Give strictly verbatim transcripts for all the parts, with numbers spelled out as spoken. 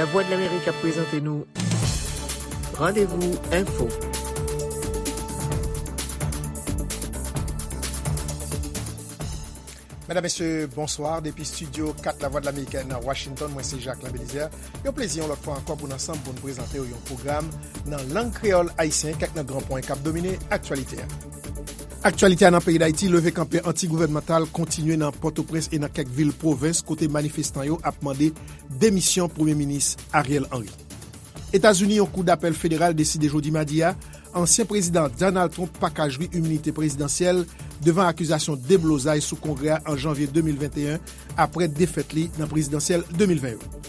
Lavwadlamerik ap prezante nou Randevou Enfo. Medam, mesye, bonswa. Depi estidyo kat Lavwadlamerik nan Washington, mwen se Jacquelin Belizaire. Yon plezi yon lòt fwa ankò pou n ansanm pou n prezante w yon pwogram nan lang kreyòl ayisyen, kèk nan gran pwen k ap domine aktyalite a. Aktyalite a nan peyi Dayiti, leve kanpe anti-gouvènmantal kontinye nan Pòtoprens e nan kèk vil pwovens kote manifestan yo ap mande demisyon Premye Minis Ariel Henry. Etazini, yon kou dapèl federal deside jodi madi a, ansyen prezidan Donald Trump pa ka jwi iminite prezidansyèl devan akizasyon deblozay sou Kongrè a an janvye de mil venteyen, apre defèt li nan prezidansyèl de mil ven yo.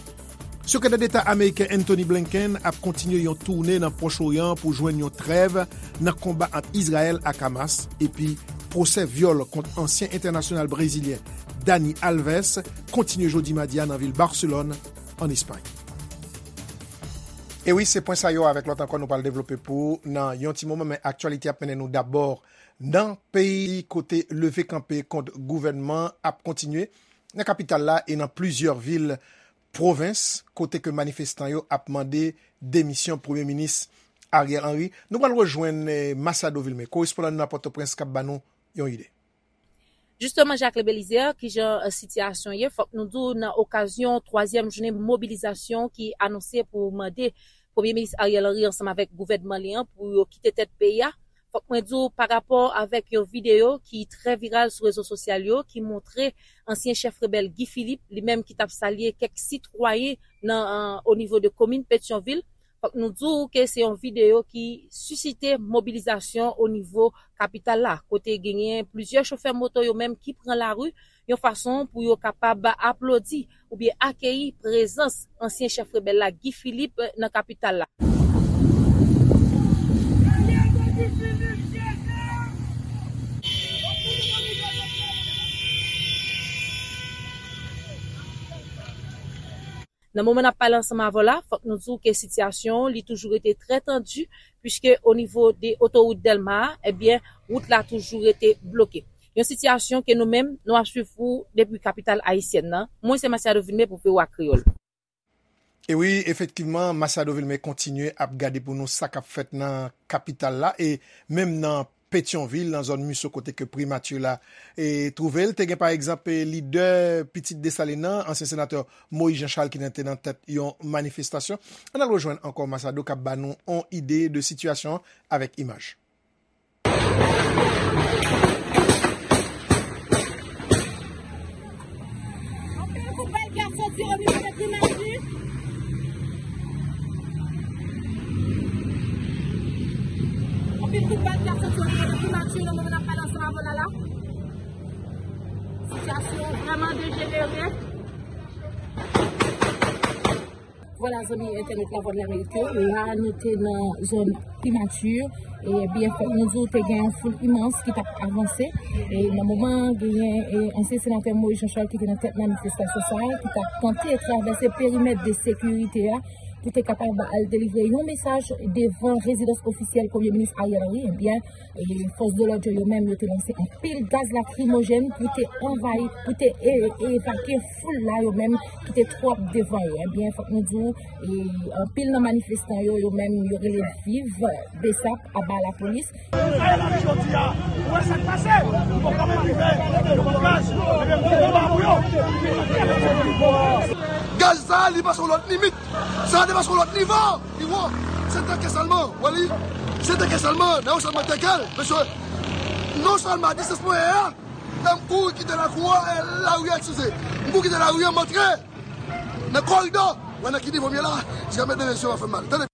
Sekretè Deta ameriken Antony Blinken ap kontinye yon toune nan Pwòch Oryan pou jwenn yon trèv nan konba ant Izrayèl ak Hamas, epi pwosè vyòl kont ansyen entènasyonal brezilyen Dani Alves kontinye jodi madi a nan vil Barselòn, ann Espay. E wi, se pwen sa yo avèk lòt ankò nou pral devlope pou ou nan yon ti moman, men aktyalite ap mennen nou dabò nan peyi kote leve kanpe kont gouvènman ap kontinye nan kapital la e nan plizyè vil pwovens kote ke manifestan yo ap mande demisyon Premye Minis Ariel Henry. Nou pral rejwenn, eh, Masado Vilmé, korespondan nou nan Pòtoprens, k ap ba nou yon ide. Jisteman, Jacques Belizaire, kijan, eh, sitiyasyon ye? Fòk nou di w, nan okazyon twazyèm jounen mobilizasyon ki anonse pou mande Premye Minis Ariel Henry ansanm avèk gouvènman li an pou yo kite tèt peyi a, fòk mwen di w, pa rapò avèk yon videyo ki trè viral sou rezo sosyal yo, ki montre ansyen chèf rebèl Guy Philippe, li menm ki t ap salye kèk sitwayen nan, eh, o nivo de komin Petyonvil, fòk nou di w ke se yon videyo ki sisite mobilizasyon o nivo kapital la, kote genyen plizyè chofè moto yo menm ki pran lari yon fason pou yo kapab aplodi oubyen akeyi prezans ansyen chèf rebèl la, Guy Philippe, nan kapital la. Nan moman n ap pale ansanm avè w la, fòk nou di w ke sitiyasyon an, li toujou rete trè tandi, piske o nivo de otowout Dèlma a, ebyen, wout la toujou rete bloke. Yon sitiyasyon ke nou menm, nou ap swiv pou depi kapital ayisyèn nan. Mwen se Masiado Vilmé pou V O A Kreyòl. E wi, efektivman, Masiado Vilmé kontinye ap gade pou nou sa k ap fèt nan kapital la e menm nan Petyonvil, nan zòn Miso kote ke primati la, e, twouve l. Te gen, pa egzanp, e, lidè Pitit Desalin nan, ansyen senatè Moïse Jean Charles ki te nan tèt yon manifestasyon. Ann al rejwenn ankò Masiado k ap ba nou yon ide de sitiyasyon an avèk imaj. Anpil kout bal ki ap soti o nivo de primati. Anpil kout bal ki ap soti o nivo de primati nan moman n ap pale ansanm avè w la la. Sitiyasyon vrèman dejenere. Vwala, zanmi entènèt Lavwadlamerik yo, la nou te nan zòn primati, e byen fèt nou di w te gen yon foul imans ki t ap avanse. E nan moman an, genyen, e, ansyen senatè Moïse Jean Charles ki te nan tèt manifestasyon sa a, ki t ap tante travèse perimèt de sekirite a pou te kapab al delivre yon mesaj devan rezidans ofisyèl Premye Minis Ariel Henry. Ebyen, e fòs de lòd yo, yo menm, yo te lanse anpil gaz lakrimojèn pou te anvayi, pou te e-, evakye foul la, yo menm, ki te twòp devan yo. Ebyen, fòk nou di w, e, anpil nan manifestan yo, yo menm, yo rele viv Besap, aba lapolis. Gaz sa a, li pase yon lòt limit. Sa a depase yon lòt nivo. Li wo. Se teke sèlman. Wè li. Se teke sèlman. Nan yon sèlman teke l. Mesye, non sèlman a distans mwen ye a, men m kouri kite lakou a, e, lari a, eskize. M kouri kite lari a, m antre nan koridò. Wè nan ki nivo m ye la. Jiska mentnan, mesye, w ap fè m mal. Tande.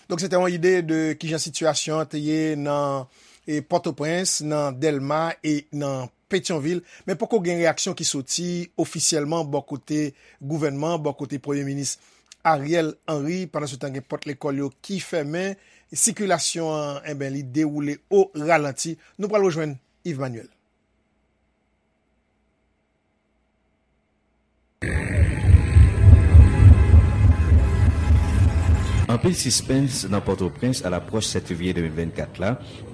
Donk, se te yon ide de kijan sitiyasyon an te ye nan, e, Pòtoprens, nan Dèlma e nan Petyonvil, men poko gen reyaksyon ki soti ofisyèlman bò kote gouvènman, bò kote Premye Minis Ariel Henry. Pandansetan, gen pòt lekòl yo ki fèmen, sikilasyon an, enben, li dewoule o ralanti. Nou pral rejwenn Yves Manuel. Anpil sispens nan Pòtoprens alapwòch sèt fevriye de mil vennkat la,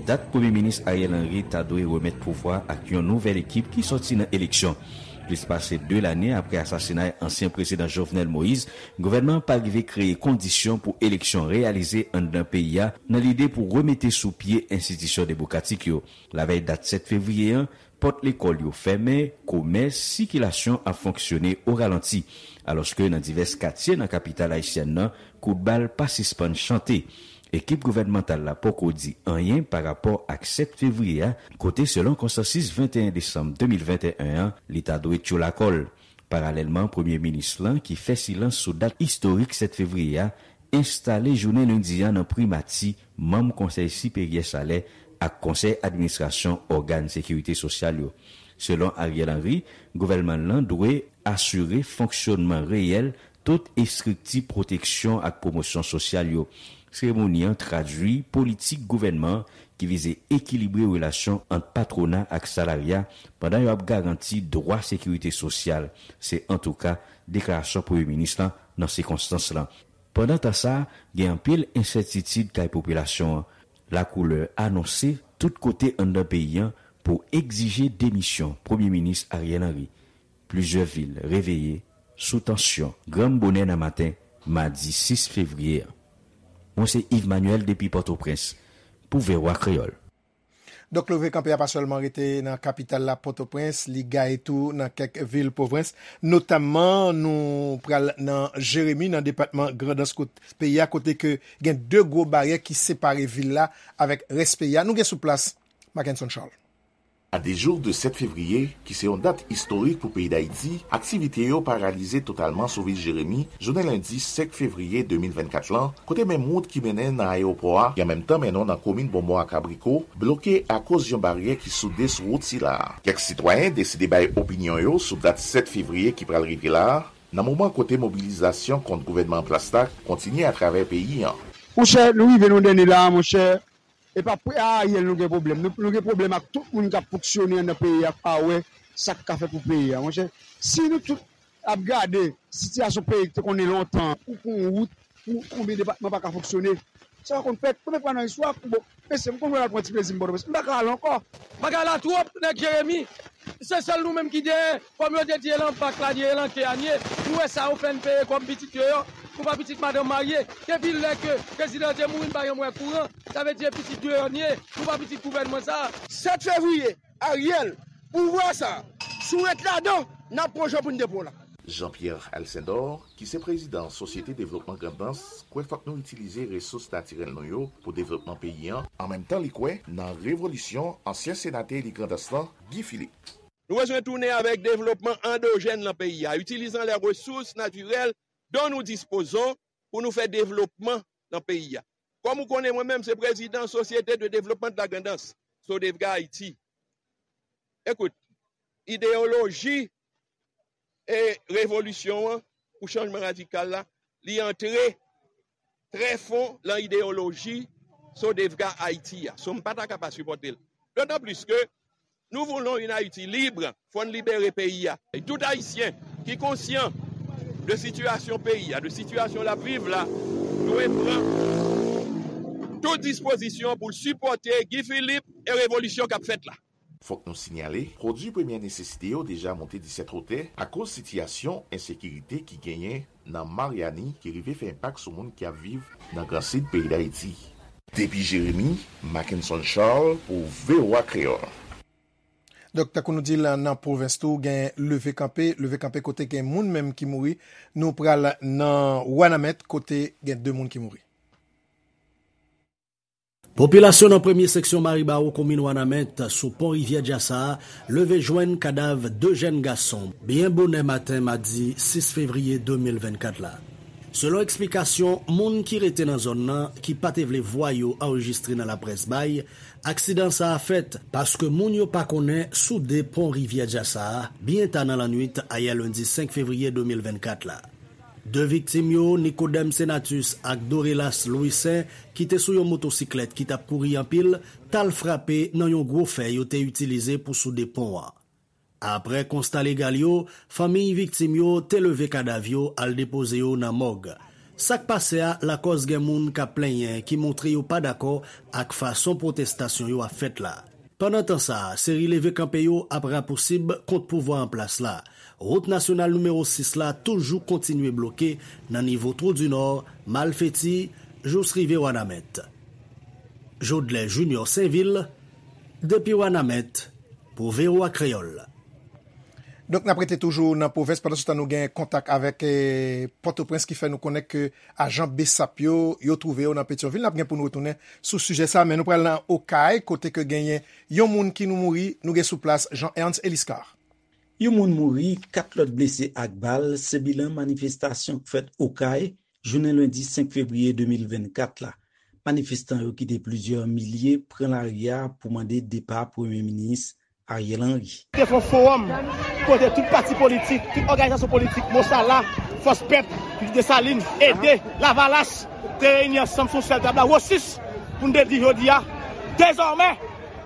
dat Premye Minis Ariel Henry ta dwe remèt pouvwa ak yon nouvèl ekip ki sòti nan eleksyon. Plis pase de lane apre asasinay ansyen prezidan Jovenel Moïse, gouvènman an pa rive kreye kondisyon pou eleksyon reyalize anndan peyi a nan lide pou remete sou pye enstitisyon demokratik yo. Lavèy dat sèt fevriye an, pòt lekòl yo fèmen, komès, sikilasyon ap fonksyone o ralanti, alòske nan divès katye nan kapital ayisyèn nan, kout bal pa sispann chante. Ekip gouvènmantal la poko di anyen pa rapò ak sèt fevriye a, kote selon konsansis venteyen desanm de mil venteyen an, li ta dwe tchoul akò l. Paralèlman, premye minis lan, ki fè silans sou dat istorik sèt fevriye a, enstale jounen lendi a nan primati manm Konsèy Siperyè Salè ak Konsèy Administrasyon ògàn sekirite sosyal yo. Selon Ariel Henry, gouvènman lan dwe asire fonksyonman reyèl tout estrikti pwoteksyon ak pwomosyon sosyal yo. Seremoni an tradui politik gouvènman an ki vize ekilibre relasyon ant patwona ak salarya pandan yo ap garanti dwa sekirite sosyal. Se antouka deklarasyon premye minis lan nan sikonstans lan. Pandan tan sa a, gen anpil ensètitid kay popilasyon an. Lakoulè anonse tout kote anndan peyi an pou egzije demisyon premye minis Ariel Henry. Plizyè vil reveye sou tansyon granm bonè nan maten madi sis fevriye an. Mwen se Yves Manuel depi Pòtoprens pou V O A Kreyòl. Donk, leve kanpe a pa sèlman rete nan kapital la, Pòtoprens, li gaye tou nan kèk vil pwovens, notamman nou pral nan Jeremi, nan depatman Grandans kot peyi a, kote ke gen de gwo baryè ki separe vil la avèk rès peyi a. Nou gen sou plas, Mackenson Charles. A de jou de sèt fevriye, ki se yon dat istorik pou peyi Dayiti, aktivite yo paralize totalman sou vil Jeremi, jounen lendi senk fevriye de mil vennkat lan, kote menm wout ki mennen nan ayewopò a, ki an menm tan mennen w nan komin Bonbon ak Abriko, bloke akoz yon baryè ki soude sou wout sila a. Kèk sitwayen deside bay opinyon yo sou dat sèt fevriye ki pral rive la a, nan moman kote mobilizasyon kont gouvènman an plas la kontinye atravè peyi an. Monchè, nou rive nan dènye la a, monchè. E pa pre a Ariel nou gen pwoblèm. Nou, nou gen pwoblèm ak tout moun k ap fonksyone anndan peyi a, k pa wè sa k ka fèt pou peyi a, monchè. Si nou tout ap gade sitiyasyon peyi k te konnen lontan, ou pou yon wout, pou konbyen depatman pa ka fonksyone, sa pa konn fèt. Premye fwa nan istwa, bon, mesye, m konn wè l al pran ti plezi m Pòtoprens. M pa ka al ankò. Bagay la twòp, nèg Jeremi. Se sèl nou menm ki genyen, kòm yo te di e lan bak la n ye, e lan ke a n ye. Nou wè sa yo fè n peye kòm pitit yo yo. Nou pa pitit madanm marye. Depi lè ke prezidan te mouri, n pa janm wè kouran. Sa vle di e pitit deyò n ye. Nou pa pitit gouvènman sa a. Sèt fevriye, Ariel, pouvwa sa a, si w ret ladan, n ap pran jan pou n depo w la. Jean-Pierre Alcindor, ki se prezidan Sosyete Devlopman Grandans, kwè fòk nou itilize resous natirèl nou yo pou devlopman peyi an. An menm tan, li kwè nan revolisyon ansyen senatè eli Grandans lan, Guy Philippe. Nou bezwen tounen avèk devlopman andojèn nan peyi a, itilizan les ressources naturelles dont nous disposons pou nou fè devlopman nan peyi a. Kòm ou konnen, mwen menm se prezidan Société de Développement de la Grand'Anse, Sodevga Haïti. Ekout, ideyoloji e revolisyon an pou chanjman radikal la, li antre trè fon lan ideyoloji Sodevga Ayiti a. So, m pa ta ka pa sipòte l. Dotan plis ke nou voulons une Haïti libre, fò n libere peyi a. E tout Ayisyen ki konsyan de sitiyasyon peyi a, de sitiyasyon l ap viv la, dwe pran tout dispozisyon pou l sipòte Guy Philippe e revolisyon k ap fèt la. Fòk nou sinyale, pwodui premyè nesesite yo deja monte disèt wotè akoz sitiyasyon ensekirite ki genyen nan Maryani ki rive fè enpak sou moun k ap viv nan Gran Sid peyi Dayiti. Depi Jeremi, Mackenson Charles pou V O A Kreyòl. Donk, tankou nou di l nan pwovens tou, gen leve kanpe, leve kanpe kote gen moun menm ki mouri. Nou pral nan Wanament, kote gen de moun ki mouri. Popilasyon nan premye seksyon Maribawo, komin Wanament, sou pon rivyè Djasa a, leve jwenn kadav de jèn gason byen bonè maten madi sis fevriye de mil vennkat la. Selon eksplikasyon moun ki rete nan zòn nan, ki pa te vle vwa yo anrejistre nan laprès bay, aksidan sa a fèt paske moun yo pa konnen sou de pon rivyè Djasa a, byen ta nan lannwit ayè lendi senk fevriye de mil vennkat la. De viktim yo, Nicodème Senatus ak Dorelas Louissaint, ki te sou yon motosiklèt ki t ap kouri anpil, t al frape nan yon gwo fè yo te itilize pou soude pon an. Apre konsta legal yo, fanmiy viktim yo te leve kadav yo al depoze yo nan mòg. Sa k pase a lakòz gen moun k ap plenyen ki montre yo pa dakò ak fason pwotestasyon yo ap fèt la. Pandan tan sa a, seri leve kanpe yo ap rapousib kont pouvwa an plas la. Wout nasyonal nimewo sis la toujou kontinye bloke nan nivo Twou di Nò, Malfeti, jous rive Wanament. Jodlè Junior Sainvil, depi Wanament, pou V O A Kreyòl. Donk, n ap rete toujou nan pwovens, pandan se tan nou gen kontak avèk eh, Pòtoprens ki fè nou konnen ke ajan BSAP yo, yo twouve yo nan Petyonvil. N ap gen pou nou retounen sou sijè sa, men nou pral nan Okay, kote ke genyen yon moun ki nou mouri, nou gen sou plas Jean Ernst Eliscar. Yon moun mouri, kat lòt blese ak bal, se bilan manifestasyon k fèt Okay, jounen lendi senk fevriye de mil vennkat la. Manifestan yo ki te plizyè milye pran lari a pou mande depa Premye Minis Ariel Henry. Te fè yon fowòm kote tout pati politik, tout òganizasyon politik, Mosala, Fòs Pèp, Desalin, Ede, Lavalas, te reyini ansanm sou sèl tab la, Wosis, pou n te di jodi a, dezòmè,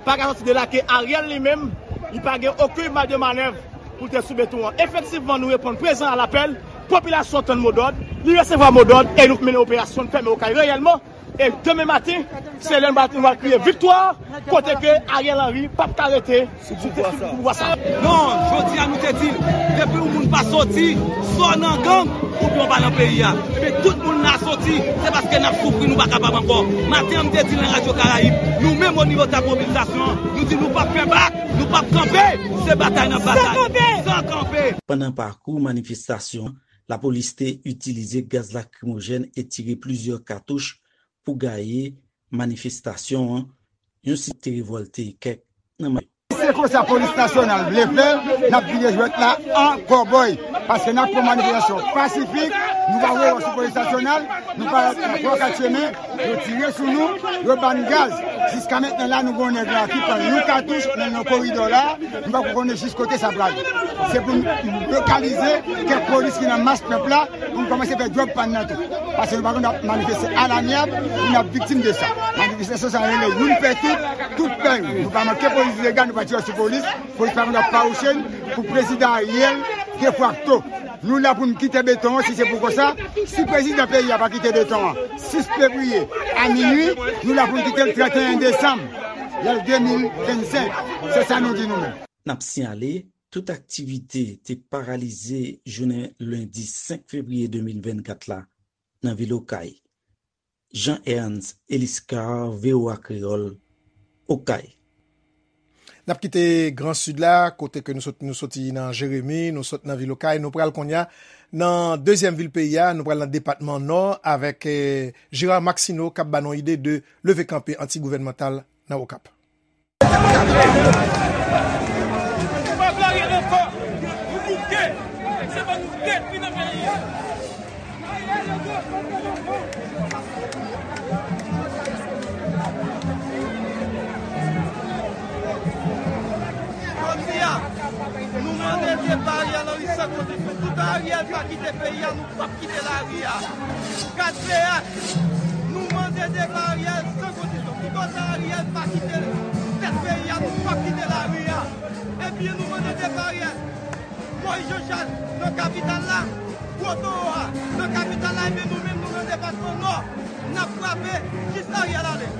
pa ka sòti de la ke Ariel li menm, li pa gen okenn maj de manèv pou l te sou beton an. Efektivman, nou reponn prezan a lapèl, popilasyon tann modòd, li resevwa modòd e nou mennen operasyon, n fèmen Okay reyèlman. E demen maten, se lè nou va kriye viktwa, kote ke Ariel Henry p ap ka rete sou pouvwa sa. Non, jodi a nou te di l, depi yon moun pa soti, swa w nan gang, oubyen w pa nan peyi a. Ebyen tout moun la soti, se paske n ap soufri, nou pa kapab ankò. Maten an m te di l nan Radyo Karayib, nou menm o nivo tab mobilizasyon an, nou di nou p ap fè bak, nou p ap kanpe, se batay n ap batay, san kanpe. Pandan pakou manifestasyon an, lapolis te itilize gaz lakrimojèn e tire plizyè katouch pou gaye manifestasyon an, yon site revòlte kèk nan manm yo. Se konsa polis nasyonal vle fè, n ap vide jwèt la an kòbòy, paske n ap pran manifestasyon pasifik, nou pa voye wòch sou polis nasyonal, nou pa pran kat chemen, yo tire sou nou, yo ba n gaz. Jiska mentnan la, nou gen yon nèg la ki pran yon katouch nan yon koridò la, nou poko konnen jis kote sa prale. Se pou n lokalize kèk polis ki nan mas pèp la, pou n kòmanse fè djòb pa n nan tou. Paske nou pa konn ap manifeste alamyab pou n ap viktim de sa. Manifestasyon sa rele youn pè tout, tout pè youn. Nou pa manke polis ilegal, nou pa tire sou polis. Polis pa konn ap fawouche n pou prezidan Ariel defakto. Nou la pou n kite beton an, si se pou konsa, si prezidan peyi a pa kite beton an sis fevriye a minui, nou la pou n kite l trannteyen desanm, lè l de mil vennsenk. Se sa nou di nou menm. N ap siyale, tout aktivite te paralize jounen lendi senk fevriye de mil vennkat la nan vil Okay. Jean Ernst Eliscar, V O A Kreyòl, Okay. N ap kite Gran Sid la, kote ke nou sot, nou soti nan Jeremi, nou sot nan vil Okay, nou pral kounye a nan dezyèm vil peyi a, nou pral nan depatman Nò avèk eh, Gérard Maxineau k ap ba nou ide de leve kanpe anti-gouvènmantal nan Okap. Jodi a, nou mande depa Ariel Henry san kondisyon. Toutan Ariel pa kite peyi a, nou p ap kite lari a. Gad T H, nou mande depa Ariel san kondisyon. Toutan Ariel pa kite tèt peyi a, nou p ap kite lari a. Ebyen, nou mande depa Ariel. Moïse Jean Charles nan kapital la, Gwo Towo a nan kapital la, ebyen, nou menm, nou nan depatman Nò, n ap frape jis Ariel ale.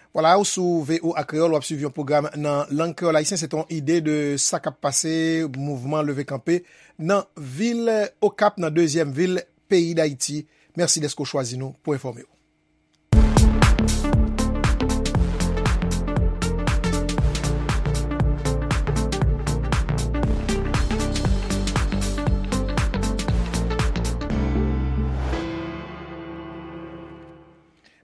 Vwala, ou sou V O A Kreyòl, w ap swiv yon pwogram nan lang kreyòl ayisyen. Se te yon ide de sa k ap pase, mouvman leve kanpe nan vil Okap, nan dezyèm vil peyi Dayiti. Mèsi dèske w chwazi nou pou enfòme w.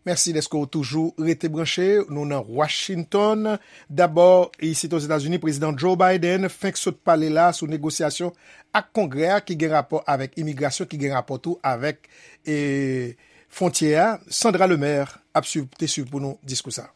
Mèsi dèske w toujou rete branche. Nou nan Washington. Dabò, isit Ozetazini, Prezidan Joe Biden fenk sot pale la sou negosyasyon ak Kongrè a ki gen rapò avèk imigrasyon, ki gen rapò tou avèk e, fwontyè a. Sandra Lemaire ap swiv, te swiv pou nou diskou sa.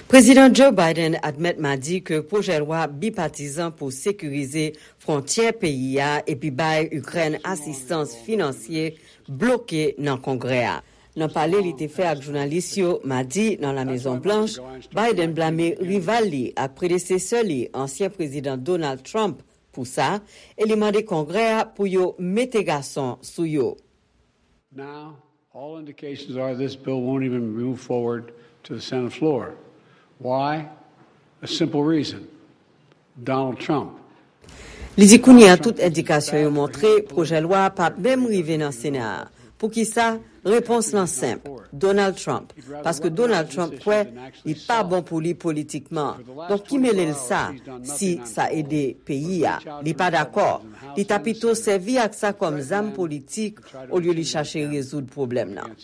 Prezidan Joe Biden admèt madi ke pwojè lwa bipatizan pou sekirize fwontyè peyi a epi bay Ikrèn asistans finansye bloke nan Kongrè a. Nan pale li te fè ak jounalis yo madi nan La Mezon Blanch, Biden blame rival li ak predesesè li, ansyen Prezidan Donald Trump, pou sa e li mande Kongrè a pou yo mete gason sou yo. All indications are this bill won't even move forward to the Senate floor. Why? A simple reason. Donald Trump. Li di kounye a tout endikasyon yo montre pwojè lwa a p ap menm rive nan Sena a. Poukisa? Repons lan senp, Donald Trump. Paske Donald Trump kwè li pa bon pou li politikman. Donk ki mele l sa si sa ede peyi a? Li pa dakò. Li ta pito sèvi ak sa kòm zam politik olye li chache rezoud pwoblèm nan.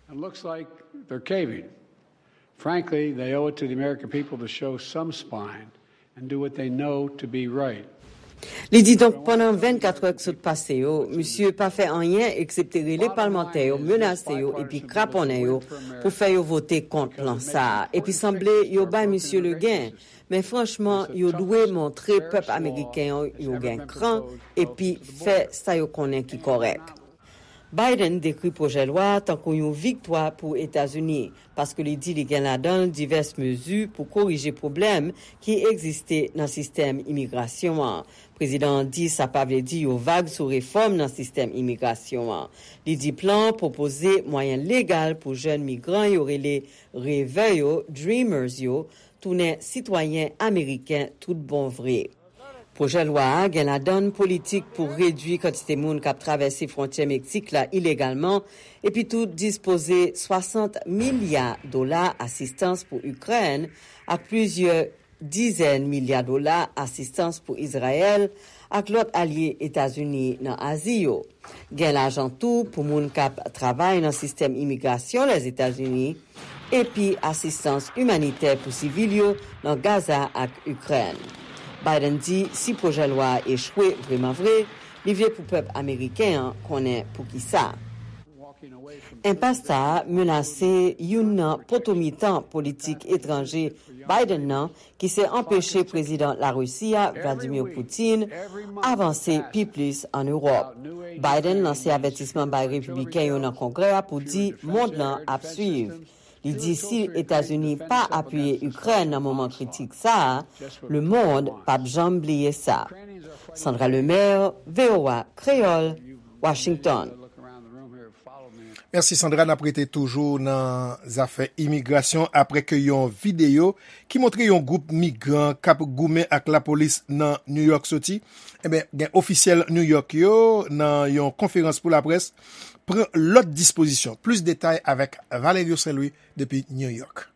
And looks like they're caving. Frankly, they owe it to the American people to show some spine and do what they know to be right. Li di donk pandan vennkat è k sot pase yo, misye pa fè anyen eksepte rele palmantè yo, menase yo epi kraponnen yo pou fè yo vote kont plan sa a. Epi sanble yo bay misye legen. Men franchman, yo dwe montre pèp ameriken an yo gen kran epi fè sa yo konnen ki kòrèk. Biden dekri pwojè lwa a tankou yon viktwa pou Etazini, paske li di li gen ladan l divès mezi pou korije pwoblèm ki egziste nan sistèm imigrasyon an. Prezidan an di sa pa vle di yon vag sou refòm nan sistèm imigrasyon an. Li di plan an pwopoze mwayen legal pou jèn migran yo rele revè yo, dreamers yo, tounen sitwayen ameriken tout bon vre. Pwojè lwa a gen ladan l politik pou redui kantite moun k ap travèse fwontyè Meksik la ilegalman, epi tou dispoze swasant milya dola asistans pou Ikrèn ak plizyè dizèn milya dola asistans pou Izrayèl ak lòt alye Etazini nan Azi yo. Gen lajan tou pou moun k ap travay nan sistèm imigrasyon Lèzetazini, epi asistans imanitè pou sivil yo nan Gaza ak Ikrèn. Biden di si pwojè lwa a echwe vrèman vre, li vle pou pèp ameriken an konnen poukisa. Enpas sa a menase youn nan poto mitan politik etranje Biden nan, ki se anpeche prezidan Larisi a, Vladimir Putin, avanse pi plis ann Ewòp. Biden lanse avètisman bay repibliken yo nan Kongrè a pou di mond lan ap swiv. Li di si Etazini pa apiye Ikrèn nan moman kritik sa a, lemonn p ap janm bliye sa. Sandra Lemaire, V O A Kreyòl, Washington. Mèsi Sandra, n ap rete toujou nan zafè imigrasyon apre ke yon videyo ki montre yon gwoup migran k ap goumen ak lapolis nan New York soti. Ebyen, gen ofisyèl New York yo nan yon konferans pou laprès pran lòt dispozisyon. Plis detay avèk Valerio Saint-Louis depi New York.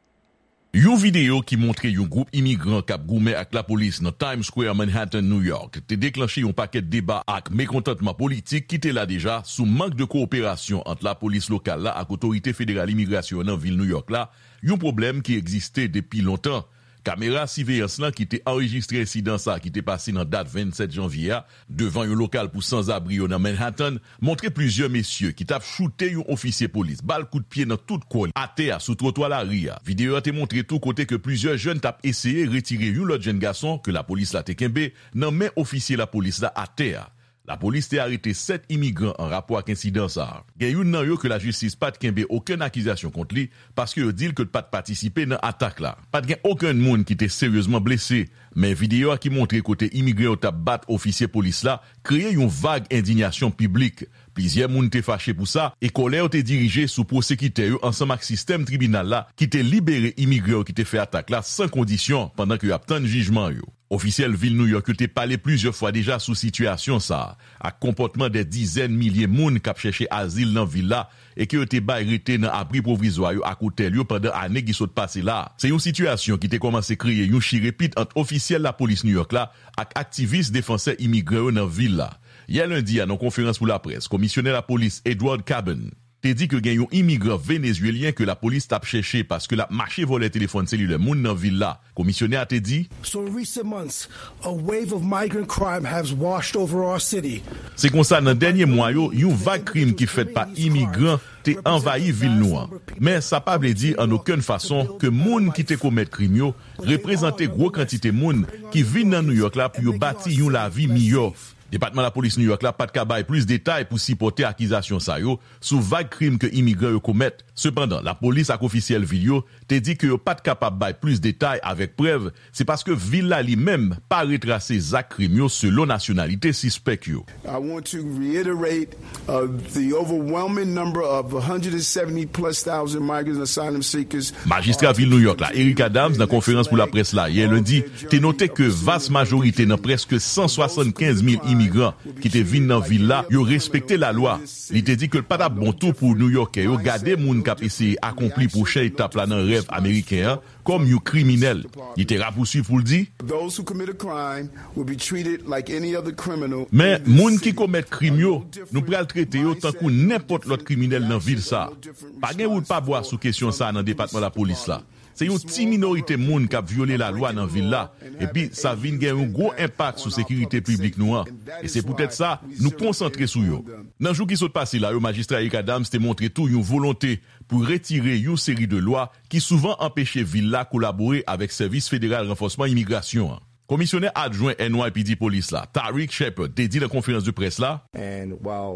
Yon videyo ki montre yon gwoup imigran k ap goumen ak lapolis nan Times Square, Manhattan, New York, te deklanche yon pakèt deba ak mekontantman politik ki te la deja sou mank de kowoperasyon ant lapolis lokal la ak otorite federal imigrasyon an nan vil New York la, yon pwoblèm ki egziste depi lontan. Kamera siveyans lan ki te anrejistre ensidan sa a ki te pase nan dat vennsèt janvye a, devan yon lokal pou sanzabri yo nan Manhattan, montre plizyè mesye ki t ap choute yon ofisye polis bal kout pye nan tout kò l atè a sou twotwa lari a. Videyo a te montre tou kote ke plizyè jèn t ap eseye retire yon lòt jèn gason ke lapolis la te kenbe nan men ofisye lapolis la atè a. Lapolis te arete sèt imigran an rapò ak ensidan sa a. Gen youn nan yo ke lajistis pa t kenbe okenn akizasyon kont li, paske yo di l ke l pa t patisipe nan atak la. Pa t gen okenn moun ki te seryezman blese, men videyo a ki montre kote imigran yo t ap bat ofisye polis la kreye yon vag endiyasyon piblik. Plizyè moun te fache pou sa, e kòlè yo te dirije sou pwosekitè yo ansanm ak sistèm tribinal la ki te libere imigran yo ki te fè atak la san kondisyon pandan ke y ap tann jijman yo. Ofisyèl vil New York yo te pale plizyè fwa deja sou sitiyasyon sa a, ak konpòtman dè dizèn milye moun k ap chèche azil nan vil la e ke yo te bay rete nan abri pwovizwa yo ak otèl yo pandan ane ki sot pase la a. Se yon sitiyasyon ki te kòmanse kreye yon chirepit ant ofisyèl lapolis New York la ak aktivis defansè imigran yo nan vil la. Yè lendi a, nan konferans pou laprès, komisyonè lapolis Edward Caban te di ke gen yon imigran venezuelyen ke lapolis t ap chèche paske l ap mache vòlè telefòn selilè moun nan vil la. Komisyonè a te di, So in recent months, a wave of migrant crime has washed over our city. Se konsa, nan dènye mwa yo, yon vag krim ki fèt pa imigran te anvayi vil nou an. Men sa pa vle di an okenn fason ke moun ki te komèt krim yo reprezante gwo kantite moun ki vin nan New York la pou yo bati yon lavi miyò. Depatman Lapolis New York la pa t ka bay plis detay pou sipòte akizasyon sa yo sou vag krim ke imigran yo komèt, Sepandan, lapolis ak ofisyèl vil yo te di ke yo pa t kapab bay plis detay avèk prèv, se paske vil la li menm pa retrase zak krim yo selon nasyonalite sispèk yo. I want to reiterate, uh, the overwhelming number of one hundred seventy plus thousand migrants and asylum seekers. Majistra vil New York la, Eric Adams, nan konferans pou laprès la yè lendi, te note ke vas majorite nan prèske san swasannkenz mil imigran ki te vin nan vil la, yo respekte lalwa. Li te di ke l pa t ap bon tou pou Nouyòkè yo gade moun k ap eseye akonpli pwochen etap la nan rèv ameriken an kòm yon kriminèl. Li te rapousuiv pou l di, Those who commit a crime will be treated like any other criminal. Men, moun ki komèt krim yo, nou pral trete yo tankou nenpòt lòt kriminèl nan vil sa a. Pa gen wout pa bwa sou kesyon sa a nan depatman lapolis la. Se yon ti minorite moun k ap vyole lalwa nan vil la, epi sa vin gen yon gwo enpak sou sekirite piblik nou an. E se poutèt sa, nou konsantre sou yo. Nan jou ki sot pase la yo, Majistra Eric Adams te montre tou yon volonte pou retire yon seri de lwa ki souvan anpeche vil la kolabore avèk Sèvis Federal Ranfòsman Imigrasyon an. Komisyonè adjwen N Y P D Polis la, Tariq Shepherd, te di nan konferans de près la, Pandan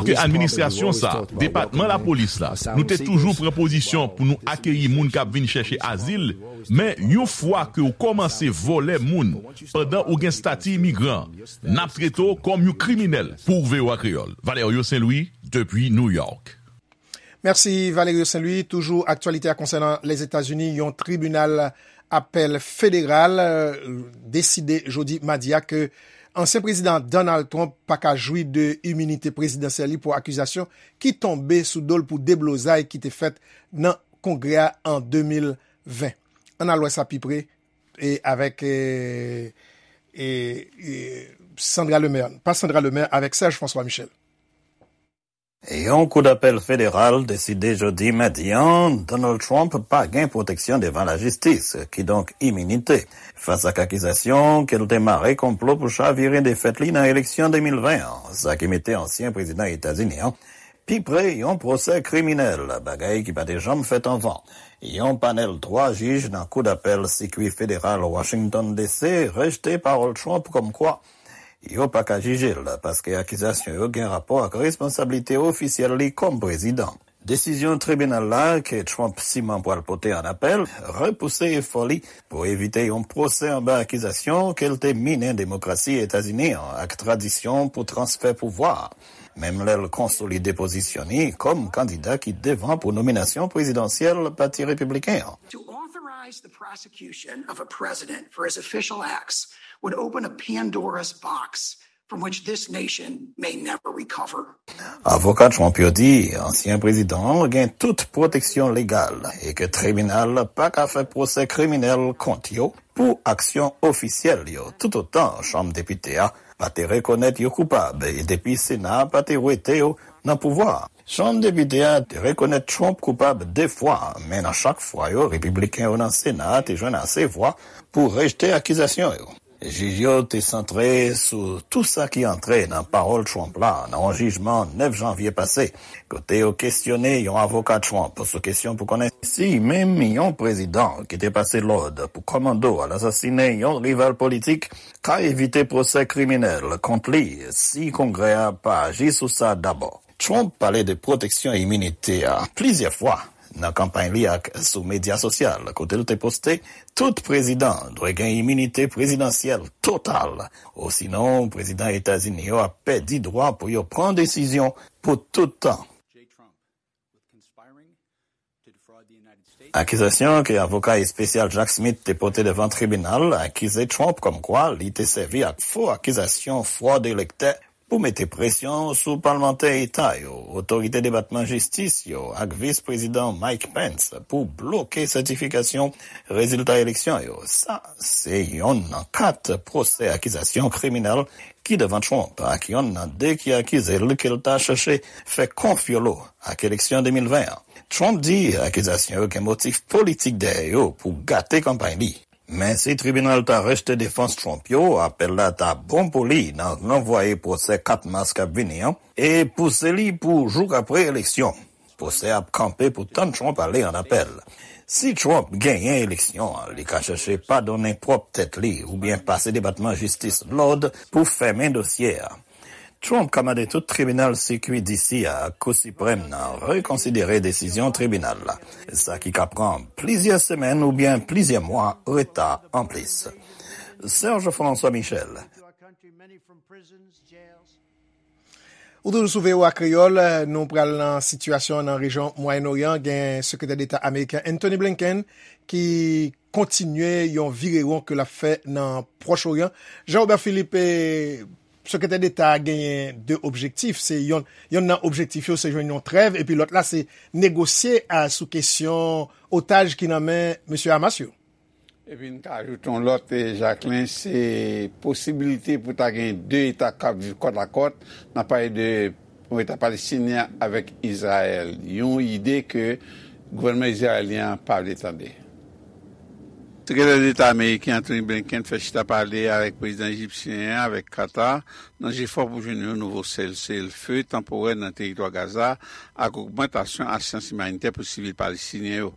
ke administrasyon sa a, depatman lapolis la, nou te toujou pran pozisyon pou nou akeyi moun k ap vin chèche azil, men yon fwa ke w kòmanse vòlè moun pandan ou gen estati imigran, n ap trete w kòm yon kriminèl. Pou V O A Kreyòl, Valerio Saint Louis, depi New York. Mèsi, Valerio Saint Louis. Toujou aktyalite a konsènan Lèzetazini, yon tribinal apèl federal, euh, deside jodi madi a ke ansyen prezidan Donald Trump pa ka jwi de iminite prezidansyèl li pou akizasyon ki tonbe sou do l pou deblozay ki te fèt nan Kongrè a an de mil ven. Ann al wè sa pi pre e avèk, e, e, e, Sandra Lemaire, pa Sandra Lemaire, avèk Serge François Michel. Yon koudapèl federal deside jodi madi a, Donald Trump pa gen pwoteksyon devan lajistis, kidonk iminite, fas ak akizasyon ke l te mare konplo pou chavire defèt li nan eleksyon de mil ven an, sa ki mete ansyen prezidan Etazini an pi pre yon pwosè kriminèl, bagay ki pa te janm fèt anvan. Yon panèl twa jij nan koudapèl sikwi federal Washington D C rejte pawòl Trump kòmkwa yo pa ka jije l, paske akizasyon yo gen rapò ak responsablite ofisyèl li kòm prezidan. Desizyon tribinal la, ke Trump siman pral pote an apèl, repouse efò li pou evite yon pwosè anba akizasyon ke l te minen demokrasi Etazini an ak tradisyon pou transfè pouvwa, menm lè l konsolide pozisyon li kòm kandida ki devan pou nominasyon prezidansyèl Pati Repibliken an. To authorize the prosecution of a president for his official acts would open a Pandora's box from which this nation may never recover. Avoka Trump yo di ansyen prezidan an gen tout pwoteksyon legal e ke tribinal pa ka fè pwosè kriminèl kont yo pou aksyon ofisyèl yo, toutotan Chanm Depite a pa te rekonèt yo koupab e depi Sena a pa te wete yo nan pouvwa a. Chanm Depite a te rekonèt Trump koupab de fwa, men nan chak fwa yo, Repibliken yo nan Sena a te jwenn ase vwa pou rejte akizasyon yo. Jij yo te santre sou tou sa ki antre nan pawòl Trump la nan yon jijman nèf janvye pase, kote yo kesyone yon avoka Trump sou kesyon pou konnen si menm yon prezidan ki te pase lòd pou kòmando al asasinen yon rival politik ka evite pwosè kriminèl kont li si Kongrè a pa aji sou sa dabò. Trump pale de pwoteksyon iminite a plizyè fwa nan kanpay li ak sou medya sosyal, kote l te poste, tout prezidan dwe gen iminite prezidansyèl total, osinon prezidan Etazini yo ap pèdi dwa pou yo pran desizyon pou tout tan. Akizasyon ke avoka espesyal Jack Smith te pote devan tribinal akize Trump kòmkwa li te sèvi ak fo akizasyon fwòd elektè pou mete presyon sou palmantè eta yo, otorite Depatman Jistis yo ak Vis Prezidan Mike Pence pou bloke sètifikasyon rezilta eleksyon yo. Sa se yonn nan kat pwosè akizasyon kriminèl ki devan Trump, ak yonn nan de ki akize l ke l ta chèche fè konfyolo ak eleksyon de mil ven an. Trump di akizasyon yo gen motif politik dèyè yo pou gate kanpay li. Men si tribinal ta rejte defans Trump yo, apèl la ta bon pou li nan ranvwaye pwosè kat mas k ap vini an e pouse li pou jouk apre eleksyon. Pwosè ap kanpe pou tann Trump ale an apèl. Si Trump genyen eleksyon an, li ka chèche padonnen pwòp tèt li oubyen pase Depatman Jistis lòd pou fèmen dosye a. Trump ka mande tout tribinal sikui D C a ak Kou Siprèm nan rekonsidere desizyon tribinal la, sa ki ka pran plizyè semèn oubyen plizyè mwa reta anplis. Serge François Michel. Ou toujou sou V O A Kreyòl, nou pral nan sitiyasyon nan rejyon Mwayen Oryan. Gen Sekretè Deta ameriken Antony Blinken ki kontinye yon virewon ke l ap fè nan Pwòch Oryan. Jean Robert Philippe, eh, Sekretè Deta a genyen de objektif. Se yon, yon nan objektif yo, se jwenn yon trèv, epi lòt la, se negosye a, sou kesyon otaj ki nan men mesye Hamas yo. Epi n ka ajoute yon lòt, eh, Jacquelin, se posibilite pou ta gen de eta k ap viv kòt a kòt. N ap pale de yon eta palestinyen avèk Izrayèl. Yon ide ke gouvènman izrayelyen an pa vle tande. Sekretè Deta ameriken Antony Blinken fè chita pale avèk prezidan ejipsyen an, avèk Qatar, nan jefò pou jwenn yon nouvo seselefe tanporè nan teritwa Gaza ak ogmantasyon asistans imanitè pou sivil palestinyen yo.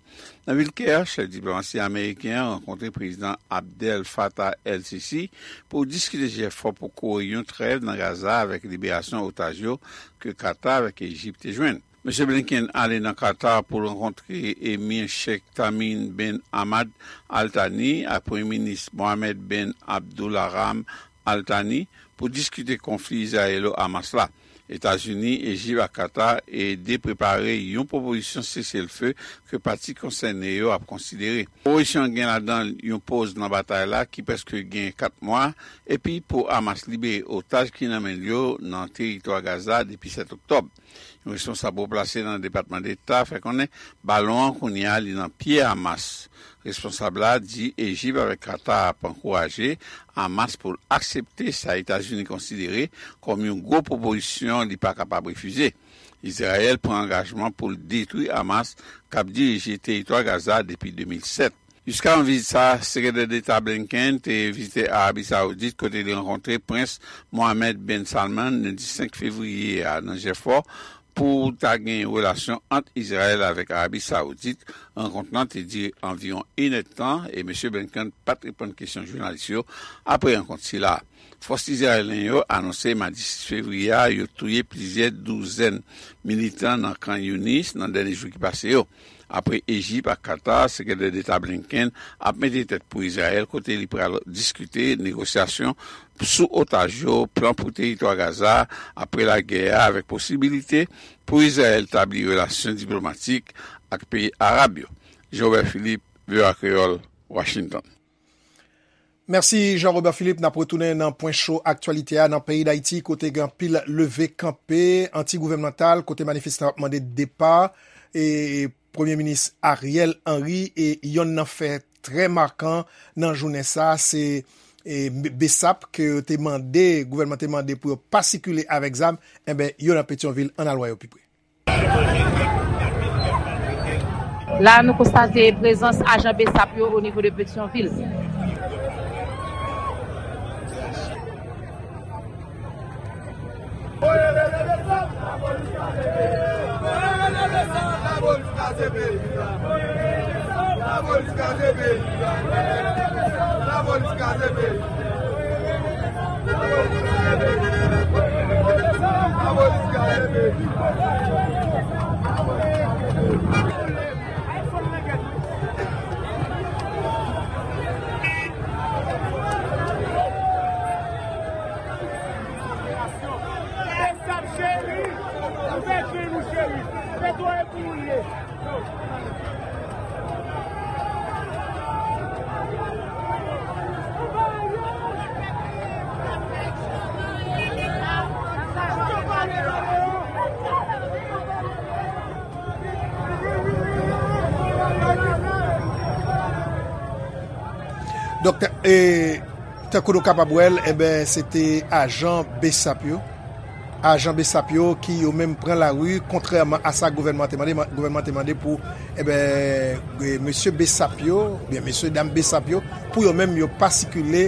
Nan vil Kè, chèf diplomasi ameriken an rankontre prezidan Abdel Fattah el-Sisi pou diskite jefò pou kore yon trèv nan Gaza avèk liberasyon otaj yo ke Qatar avèk Ejip te jwenn. Mesye Blinken ale nan Qatar pou l rankontre Emir Sheikh Tamim bin Hamad Al Thani ak Premye Minis Mohammed bin Abdulrahman Al Thani pou diskite konfli Izrayelo-Hamas la. Etazini, Ejip ak Qatar ede prepare yon pwopozisyon seselfe ke pati konsène yo ap konsidere. Pwopozisyon an gen ladan l yon poz nan batay la ki prèske gen kat mwa, epi pou Hamas libere otaj ki nan men l yo nan teritwa Gaza depi sèt oktòb. Yon responsab wo plase nan Depatman Deta fè konnen balon an kounye a li nan pye Hamas. Responsab la di Ejip avèk Qatar ap ankouraje Hamas pou l aksepte sa Etazini konsidere kòm yon gwo pwopozisyon li pa kapab refize. Izrayèl pran angajman pou l detwi Hamas k ap dirije teritwa Gaza depi de mil sèt. Jiska yon vizit sa, Sekretè Deta Blinken te vizite Arabi Sawoudit kote li rankontre Prens Mohammed bin Salman lendi senk fevriye a nan jefò pou ta gen relasyon ant Izrayèl avèk Arabi Sawoudit. Rankont lan te dire anviwon enèdtan e mesye Blinken pa t reponn kesyon jounalis yo apre rankont sila. Fòs izrayelyen yo anonse madi sis fevriye a yo touye plizyè douzèn militan nan Khan Younis nan dènye jou ki pase yo. Apre Ejip ak Qatar, Sekretè Deta Blinken ap mete tèt pou Izrayèl kote li pral diskite negosyasyon sou otaj yo, plan pou teritwa Gaza apre lagè a, avèk posibilite pou Izrayèl tabli relasyon diplomatik ak peyi arab yo. Jean Robert Philippe, V O A Kreyòl, Washington. Mèsi Jean Robert Philippe. N ap retounen nan pwen cho aktyalite a nan peyi Dayiti kote gen anpil leve kanpe anti-gouvènmantal kote manifestan ap mande depa e Premye Minis Ariel Henry e yonn nan fè trè makan nan jounen sa se e, Besap ke yo te mande, gouvènman te mande pou yo pa sikile avèk zam, enben yo nan Petyonvil, ann al wè yo pi pre. La nou konstate prezans ajan Besap yo o nivo de Petyonvil. Donk, e, tankou nou kapab wè l, enben, se te ajan Besap yo. Ajan Besap yo ki yo menm pran lari, kontrèman a sa gouvènman te mande, gouvènman te mande pou, enben, e, mesye Besap yo, oubyen mesye dam Besap yo, pou yo menm yo pa sikile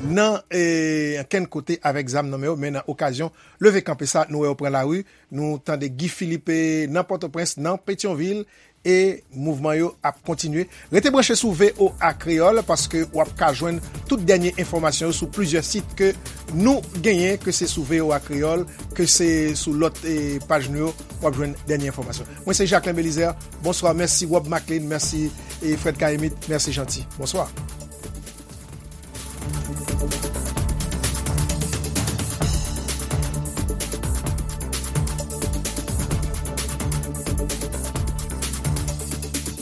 nan, e, ankenn kote avèk zam nan men yo, men nan okazyon leve kanpe sa, nou wè yo pran lari, nou tande Guy Philippe nan Pòtoprens, nan Petyonvil, E mouvman yo ap kontinye. Rete branche sou V O A Kreyòl paske w ap ka jwenn tout dènye enfòmasyon yo sou plizyè sit ke nou genyen, ke se sou V O A Kreyòl, ke se sou lòt eh, paj nou yo, w ap jwenn dènye enfòmasyon. Mwen se Jacquelin Belizaire. Bonswa, mèsi Rob Maclean, mèsi eh, Fred Kaimit, mèsi Jeanty. Bonswa.